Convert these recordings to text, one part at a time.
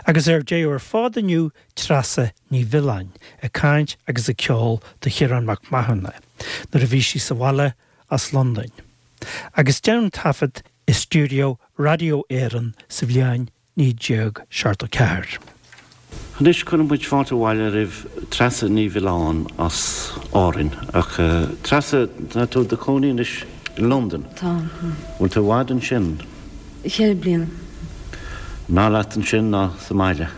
Agus ar deireadh ar fad inniu Treasa Ní Mhiolláin ag caint agus ag ceol do Chiarán Mac Mathúna nuair a bhí sí sa bhaile as Londain. Agus déanadh an taifead i stiúideo Raidió Éireann sa bhliain 1974. Anois cuireann muid fáilte abhaile roimh Treasa Ní Mhiolláin as Árainn. Ach Treasa, tá tú i do chónaí anois i Londain. Tá. Bhfuil tú i bhfad ansin? Cheithre bliana. An fhearr leat ansin ná sa mbaile?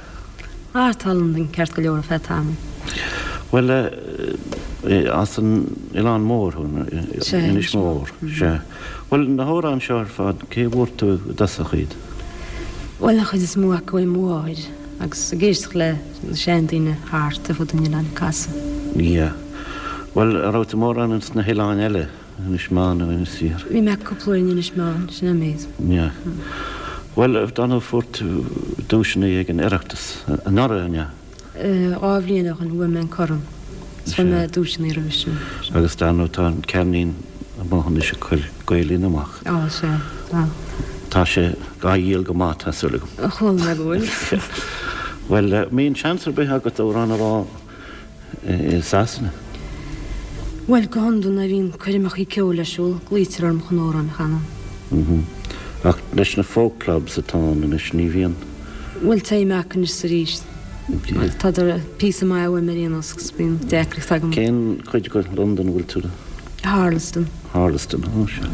Ah, tá Londain ceart go leor ar feadh tamaill. Bhuel, as an Oileán Mór thú, Inis Mór. Sea. Bhuel, na hamhráin seo ar fad, cé a bhfuair tú i dtosach iad? Bhuel, an chuid is mó acu ó mo mháthair, agus ag éisteacht le na seandaoine thart ar fud an oileáin ag casadh. Yeah. Bhuel, an raibh tú mórán ins na hoileáin eile, Inis Meáin nó Inis Oírr? Bhí mé cúpla uair in Inis Meáin, sin an méid. Yeah. Bhuel, dar ndóigh fuair tú duaiseanna ag an Oireachtas anuraidh, an ea? 2 bhliain ó shin bhuaigh mé an corn. Is bhuaigh mé duaiseanna roimhe sin. Agus dar ndóigh tá an ceirnín amuigh anois ag cur Gael-Linn amach. Á, sea, tá. Tá sé á dhíol go maith, tá súil agam. Chuala mé go bhfuil. Bhuel, an mbíonn seans ar bith agat amhrán a rá i Sasana? Bhuel, go hiondúil nuair a bhíonn coirmeachaí ceoil ar siúl, glaoitear orm chun amhrán a chanadh. Ach leis na folk clubs atá ann anois, ní bhíonn. Bhuel, téim acu anois is arís. Tádar píosa maith uaim ar aon nós agus bíonn deacracht agam. Cén chuid de Londain a bhfuil tú? Harlesden. Harlesden, ó sea.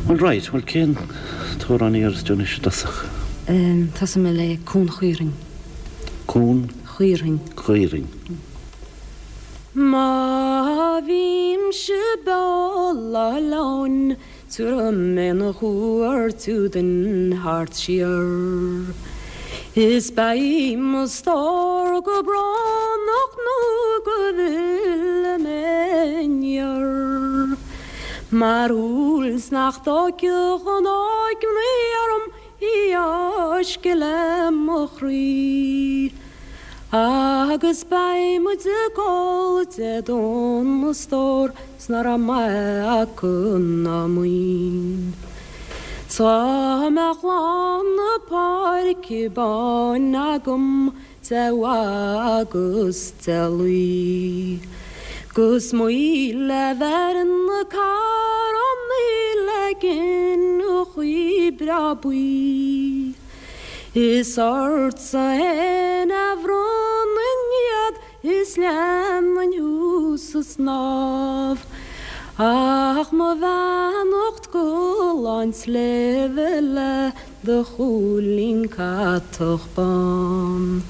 Bhuel, right, bhuel cén t-amhrán a iarrfas tú anois i dtosach? Tosóidh mé le Cuan Chaorthainn. Cuan? Chaorthainn. Chaorthainn. Má bhímse beo lá oileáin Tabharfaidh mé 'na chuairt den thart siar. Is beidh mo stór go brónach nó go bhfillfidh mé aniar. Mar shúil 's nach dtóigfeadh an óigmhnaoi orm í fháisceadh le mo chroí. Agus beidh muid ag ól Dé Domhnaigh a stór 's ná raibh maith acu ná maoin. 'S dá mbeadh lán na páirce báine agam de bha agus de lao. 'Gus 1000 bheireann na carrannaí le gineachaí breá buí. Is ortsa fhéin a bhronnfainn iad is leanfainn thú sa snámh. Ach mo bheannacht go lán sléibhe le do chúilín catach bán.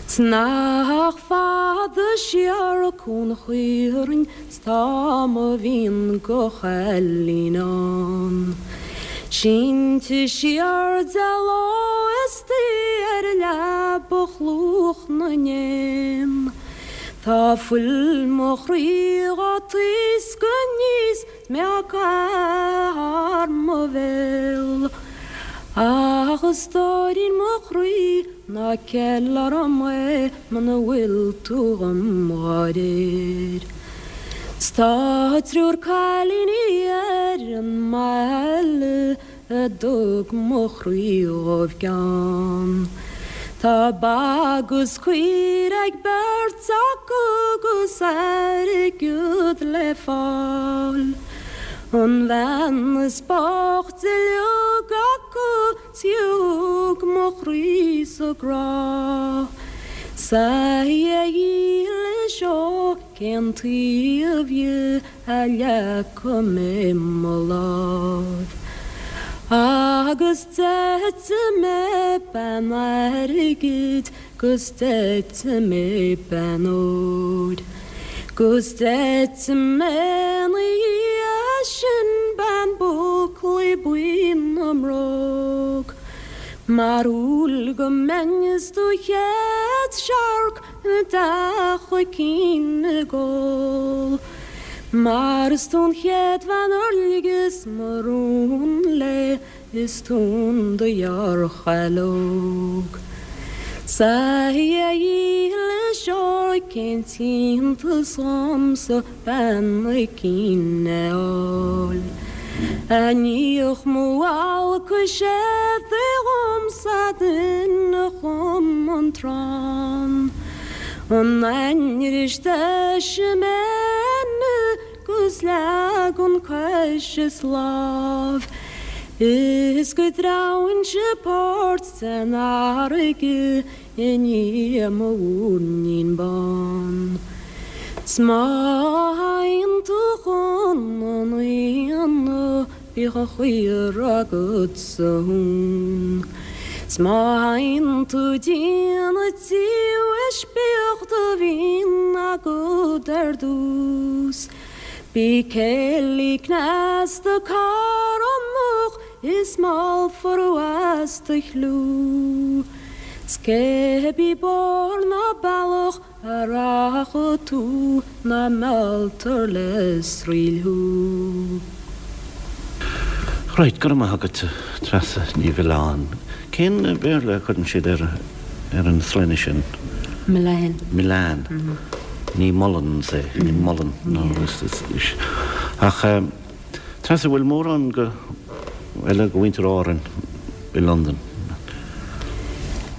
'S nach fada siar Cuan Chaorthainn 's tá mo mhian go chailín ann. Sínte siar de ló istoíche ar leaba chluach na n-éan. Tá fuil mo chroí dhá taoscadh aníos 's mé á caitheamh thar mo bhéal. Ach a stóirín mo chroí ná ceil orm é muna bhfuil tú dhom dhá réir. 'S tá triúr cailíní ar an mbaile a dtug mo chroí dhóibh gean. Tá ba agus caoire ag beirt acu 'gus airgead le fáil. An bhean is boichte uilig acu 's í a thug mo chroí sa grá. 'S a Dhia dhílis ó cén taobh dhi a leagfaidh mé mo lámh. Agus d'eitigh mé bean airgid 'gus d'eitigh mé bean óir. 'Gus d'eitigh mé 'na dhiaidh sin bean búclaí buí na mbróg. Mar shúil go mbeinn is do chéad searc i dteach a cinn ag ól. Mar is tú an chéad bhean ar ligeas mo rún léi is tú an do-ghearrchaile óg. 'S a Dhia dhílis ó cén t-iontas dhomsa bean a cinn a fháil. A níodh mo bhalcais éadaigh dhomsa duine. an trán. An ainnir is deise mé 'gus leagann cois is lámh is go dtreabhainnse páirt den fharraige i ndiaidh mo mhúirnín bán. 'S má théann tú chun an aonaigh bíodh an chaora agat sa thún. 'S má théann tú dtí an tsiamhais bíodh do mhín agat ar dtús. Bí céillí cneasta carthanach is meallfar as do chliú. 'S cébí bóthar ná bealach a rachaidh tú ná mealltar le sraoill thú. Right, go raibh maith agat, Treasa Ní Mhiolláin. Cén Béarla a chuireann siad ar ar an sloinne sin? Millane. Millane. Ní Mullins é, ní Mullen, no, is, ach Treasa, bhfuil mórán go, eile de mhuintir Árainn i Londain?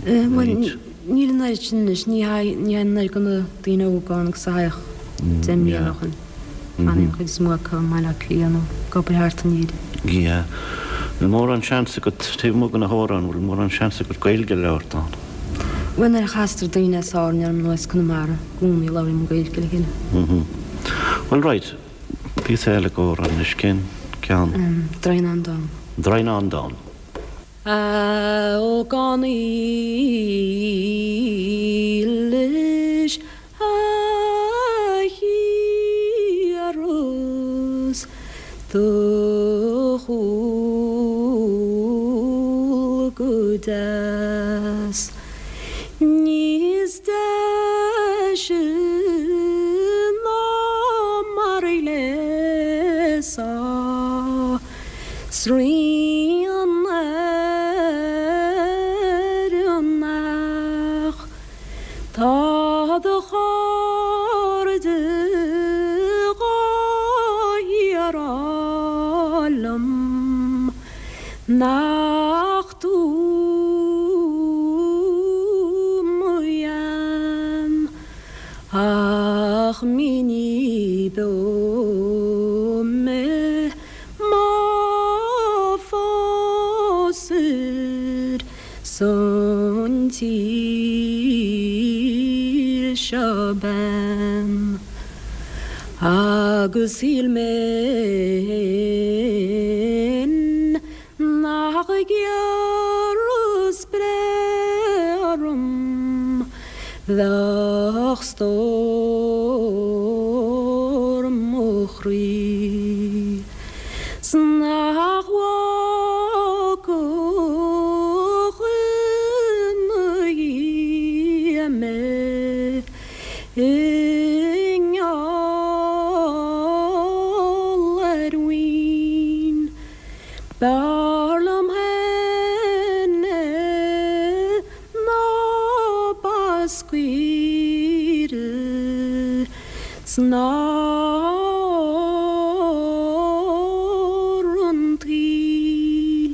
Bhuel, níl an oiread sin anois, ní théann an oiread de na daoine óga ann agus a théadh deich mbliana ó shin. Fanann an chuid is mó acu i mBaile Átha Cliath nó ag obair thart in Éirinn. Yeah. Bhfuil mórán seans agat, taobh amuigh de na hamhráin, bhfuil mórán seans agat Gaeilge a labhairt ann? Bhuel, nuair a chastar daoine as Árainn orm nó as Conamara, i gcónaí labhraím Gaeilge le chéile. Bhuel, right. Píosa eile d'amhrán anois, cén ceann? Droighneán Donn. Droighneán Donn. A ógánaigh dhílis a thiarras do chúl go deas. Níos deise ná mar a ghléasfá 's rian ar an each. Tá do chairde dhá shíor-rá liom nach tú mo bhean ach ní beo mé má phósair san tír seo bean agus shíl mé fhéin Nach ghiorras breith orm bheadh stór mo chroí 's nach bhfágfadh ina dhiaidh mé i ngeall ar mhaoin. B'fhearr liom féin é ná Bascaoire 's ná ór an tsaoil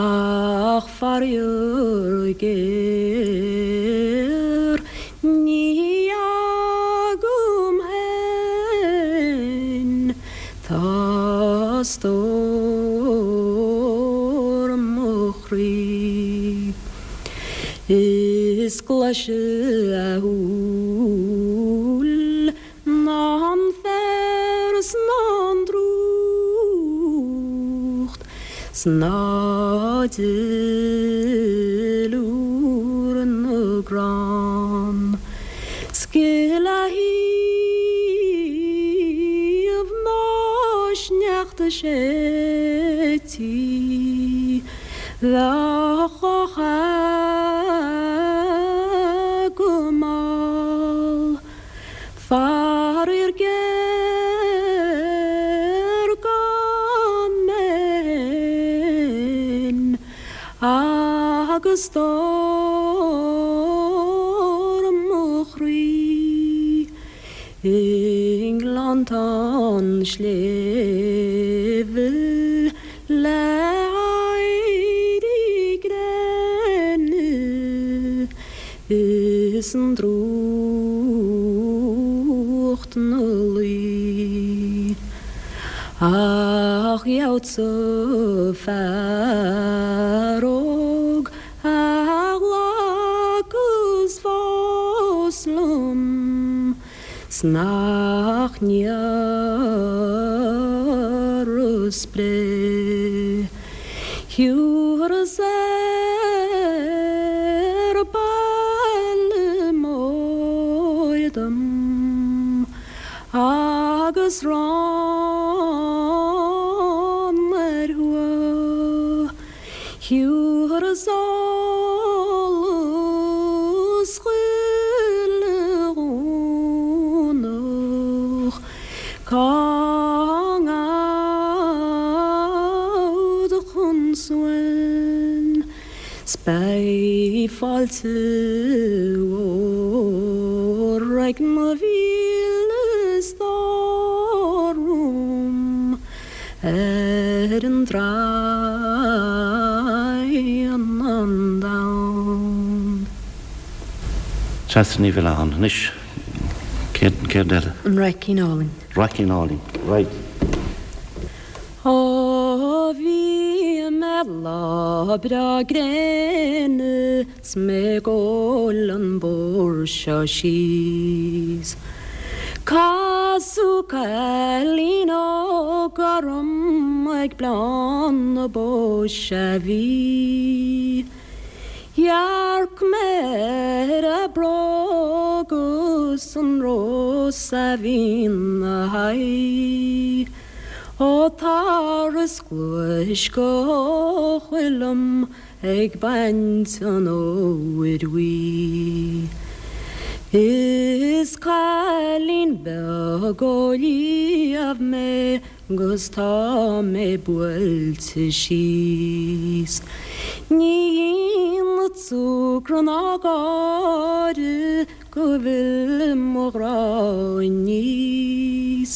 ach faraor géar ní agam féin Tá stór mo chroí. Is glaise a shúil ná an féar 's ná an drúcht 's ná duilliúr na gcrann. 'S gile a thaobh ná sneachta séidtí bheadh á chath go mall. Faraor géar gan mé fhéin Agus stór mo chroí i ngleanntán sléibhe le éirí gréine. Is an drúcht 'na luí. Ach gheobhadsa fear óg a ghlacas fós liom 's nach n-iarrfas breith. Thiúrfas ar baile mór dom agus rann ar thuath. Thiúrfas eolas chuile Dhomhnach cá ngabhfad chun suain. 'S beidh fáilte mhór ag mo mhíle stór romham ar an draighean an domhan. Treasa Ní Mhilleáin, Anois, céard, céard eile? An Raicín Álainn. Raicín Álainn, right. Ó bhí mé lá breá gréine 's mé ag gabháil an bóthar seo síos. Casadh cailín óg orm ag Bleán na Bó 's a bhí. Dhearc mé ar a bróg 's an rós a bhí 'na haghaidh. Ó tar is gluais go heochaill liom ag baint an fhómhair bhuí. Is cailín beag ó Liamh mé 'gus tá mé buailte síos. Ní dhéanfad súgradh ná gáire go bhfille mo ghrá aníos.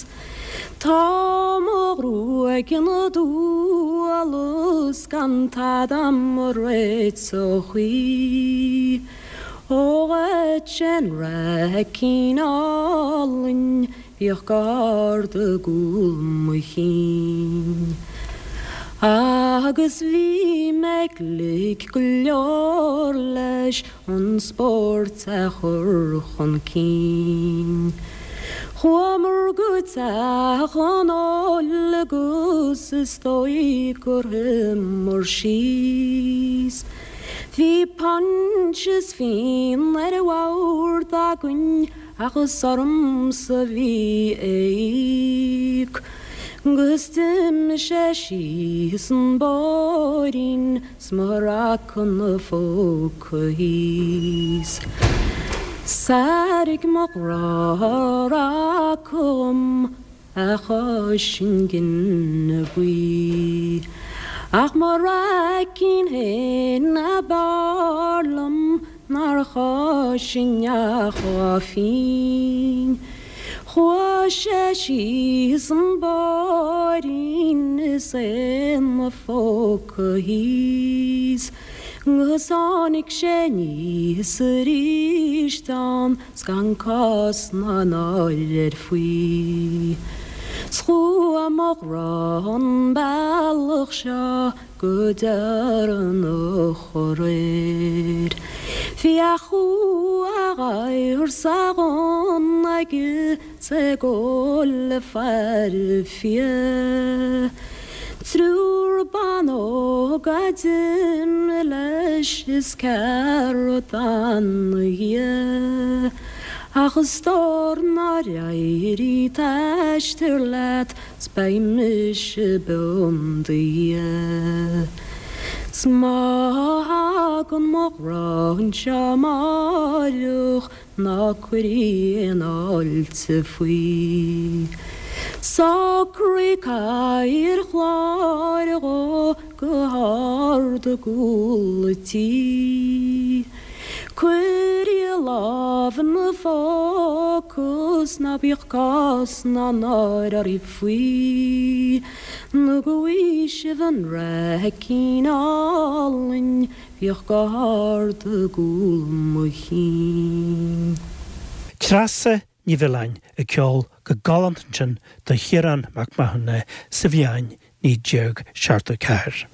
Tá mo ghruaig ina duala 's gan tada 'am a réiteodh í. Ó dhuit an raicín álainn bhíodh gar do gcúl mo chinn. Agus bhí mé glic go leor leis an spórt a chur chun cinn. Chuamar go teach an óil agus is dóigh gur shuíomar síos. Bhí punch is fíon ar an bhord againn ach is ormsa a bhí a íoc. 'Gus d'imigh sé síos an bóithrín 's mo raca 'na phóca thíos. 'S airigh mo ghrá a raca dhom a chois an ghine buí. Ach mo raicín fhéin ab fhearr liom nár choisinn ach dhá phínn. Chuaigh sé síos an bóithrín is é 'na phóca thíos, 'gus tháinig sé aníos aríst ann 's gan cás ná náire air faoi. 'S chuaigh mo ghrá an bealach seo go deireanach aréir. Bhí a chú a ghadhar 's a ghunna aige 's é ag gabháil le faire fia. Triúr ban óg a d'imigh leis is ceathrar a d'fhan 'na dhiaidh. Ach a stór nár éirigh t-aistear leat 's beidh mise beo 'im dhiaidh. 'S má thagann mo ghrá anseo amáireach ná cuir aon fháilte faoi. Socraigh cathaoir chláir dhó go hard i gcúl an tí. Cuir a lámh ina phóca. acu 's ná bíodh cás ná náire oraibh faoi, nó go bhfaighidh sibh an raicín álainn bhíodh go hard i gcúl mo chinn. Treasa Ní Mhiolláin ag ceol go galánta ansin do Chiarán Mac Mathúna sa bhliain 1974.